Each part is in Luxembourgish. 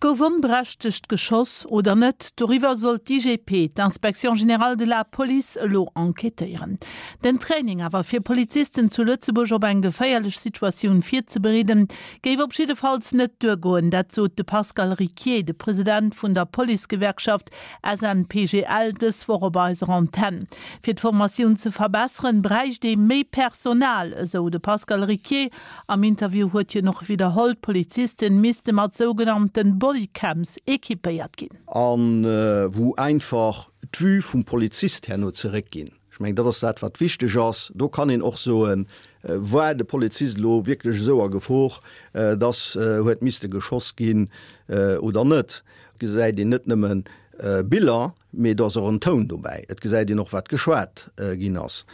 Gouf onberechtegt geschoss oder net? Doriwwer soll d'IGP, d'Inspection générale de la police, elo enquêtéieren. Den Training awer fir Polizisten zu Lëtzebuerg op eng geféierlech Situatioun virzebereeden, géif op jiddefalls net duergoen. Dat sot de Pascal Ricquier, de President vun der Policegewerkschaft SNPGL, dës Woch op eiser Antenn. Fir d'Formatioun ze verbesseren, bräicht ee méi Personal, esou de Pascal Ricquier. Am Interview huet hien och widderholl, d'Polizisten misste mat sougenannten Bodycams equipéiert ginn. A wou einfach d'Vue vum Polizist herno zeréckginn. Ech mengen, dat ass dat, wat wichteg ass. Do kann een och soen, War de Polizist elo wierklech esou a Gefor, dass huet misste geschoss ginn oder net? Et gesäit een net nëmme Biller, mee do ass och en Toun dobäi. Et gesäit een och, wat geschwat ginn ass.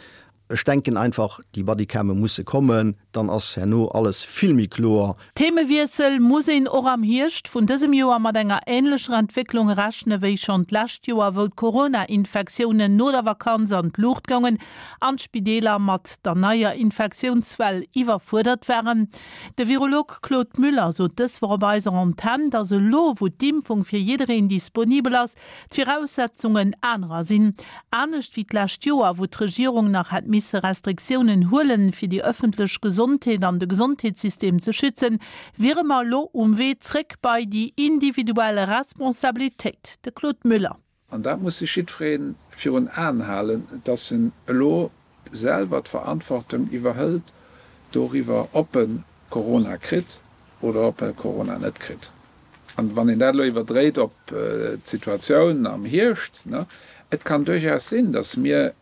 Ech denken einfach, déi Bodycame musse kommen, dann ass herno alles vill méi kloer. Themewiessel, Muss een och am Hierscht vun dësem Joer mat enger änlecher Entwécklung rechne wéi schonn d'lescht Joer, wou d'Corona-Infektiounen no der Vakanz an d'Luucht goungen an d'Spideeler mat der neier Infektiounswell iwwerfuerdert waren? De Virolog Claude Müller sot dës Woch op eiser Antenn, datt elo, wou d'Impfung fir jiddereen disponibel ass, d'Viraussetzungen anerer sinn. Anescht wéi d'lescht Joer, wou d'Regierung nach hätt misse Restriktiounen huelen, fir déi ëffentlech Gesondheet an de Gesondheetssystem ze schützen, wiere mer elo um Wee zréck bei déi individuell Responsabilitéit. De Claude Müller. An dat muss sech jiddweree virun Aen halen, dass en elo selwer d'Verantwortung iwwerhëlt doriwwer, ob e Corona kritt oder ob e Corona net kritt. An wann een dat elo iwwerdréit op d'Situatioun am Hierscht, et kann duerchaus sinn, datt mir,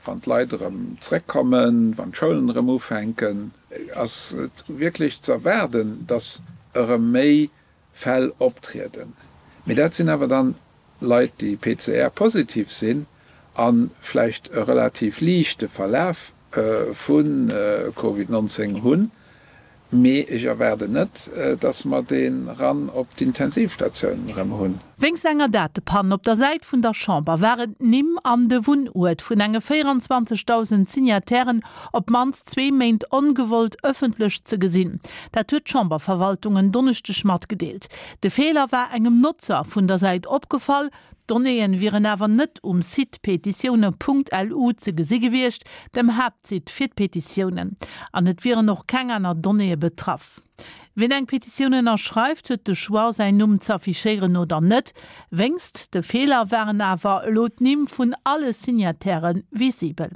wann d'Leit erëm zrëckkommen, wann d'Schoulen erëm ufänken, ass et wierklech ze erwaarden, datt erëm méi Fäll optrieden. Mee dat sinn awer dann Leit, déi PCR-positiv sinn a vläicht e relativ liichte Verlaf vu Covid 19 hunn. Mee ech erwaarden net, dass mer dee Run op d'Intensivstatiounen erëm hunn. Wéinst enger Datepann op der Säit vun der Chamber waren d'Nimm an de Wunnuert vun enge 24.000 Signatairen op d'mannst zwee Méint ongewollt ëffentlech ze gesinn. Dat huet d'Chamberverwaltung en Donneschdeg matgedeelt. De Feeler war engem Notzer vun der Säit opgefall. D'Donnéeën wieren awer net um Site petitioune.lu ze gesi gewiescht, dem Haaptsite fir d'Petitiounen. An et wieren och keng aner Donnéeë betraff. Wien eng Petitioun ënnerschreift, huet de Choix, säin Numm z'affichéieren oder net. Wéngst de Feeler waren awer elo d'Nimm vun alle Signataire visibel.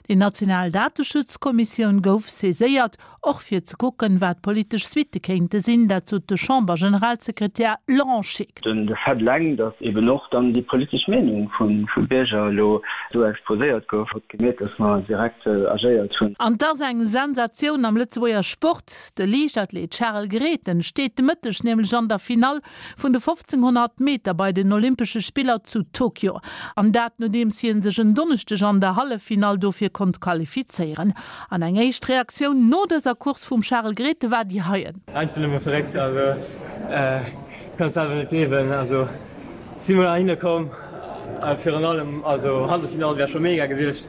Déi national Dateschutzkommissioun gouf saiséiert, och fir ze kucken, wat politesch Suitte kéinte sinn. Dat sot de Chamber-Generalsekretär Laurent Scheeck. De Fait eleng, datt eben och dann déi politesch Meenung vu Bierger elo do exposéiert gouf, huet gemierkt, datt mer direkt agéiert hunn. An 't ass eng Sensatioun am Lëtzebuerger Sport, De Liichtathlet Charel Grethen steet de Mëtteg nämlech an der Finall vun de 1500 Meter bei den Olympesche Spiller zu Tokio. An dat nodeems hie sech en Donneschdeg an der Halleffinall dofir konnt qualifizéieren. An eng éischt Reaktioun no dëser Course vum Charel Grethen war déi heien. Einfach nëmme verréckt, also kann selwer net gleewen, also si mol heihinner komm, virun allem also Halleffinall wär scho mega gewiescht,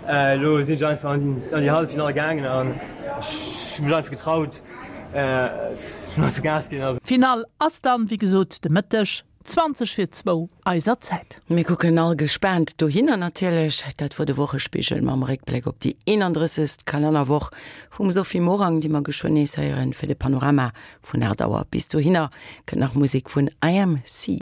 elo sinn ech einfach an déi Halleffinall gaangen an ech hu mech einfach getraut. Finall ass dann wéi gesot de Mëtteg, 20 vir zwou eiser Zäit. Mir kucken all gespaant dohinner natierlech. Dat wor de Wochespigel mam Réckbléck op déi 31. Kalennerwoch vum Sophie Morang, déi mer geschwënn nees héieren fir de Panorama vun 8 Auer. Bis dohinner kënnt nach Musek vun IMC.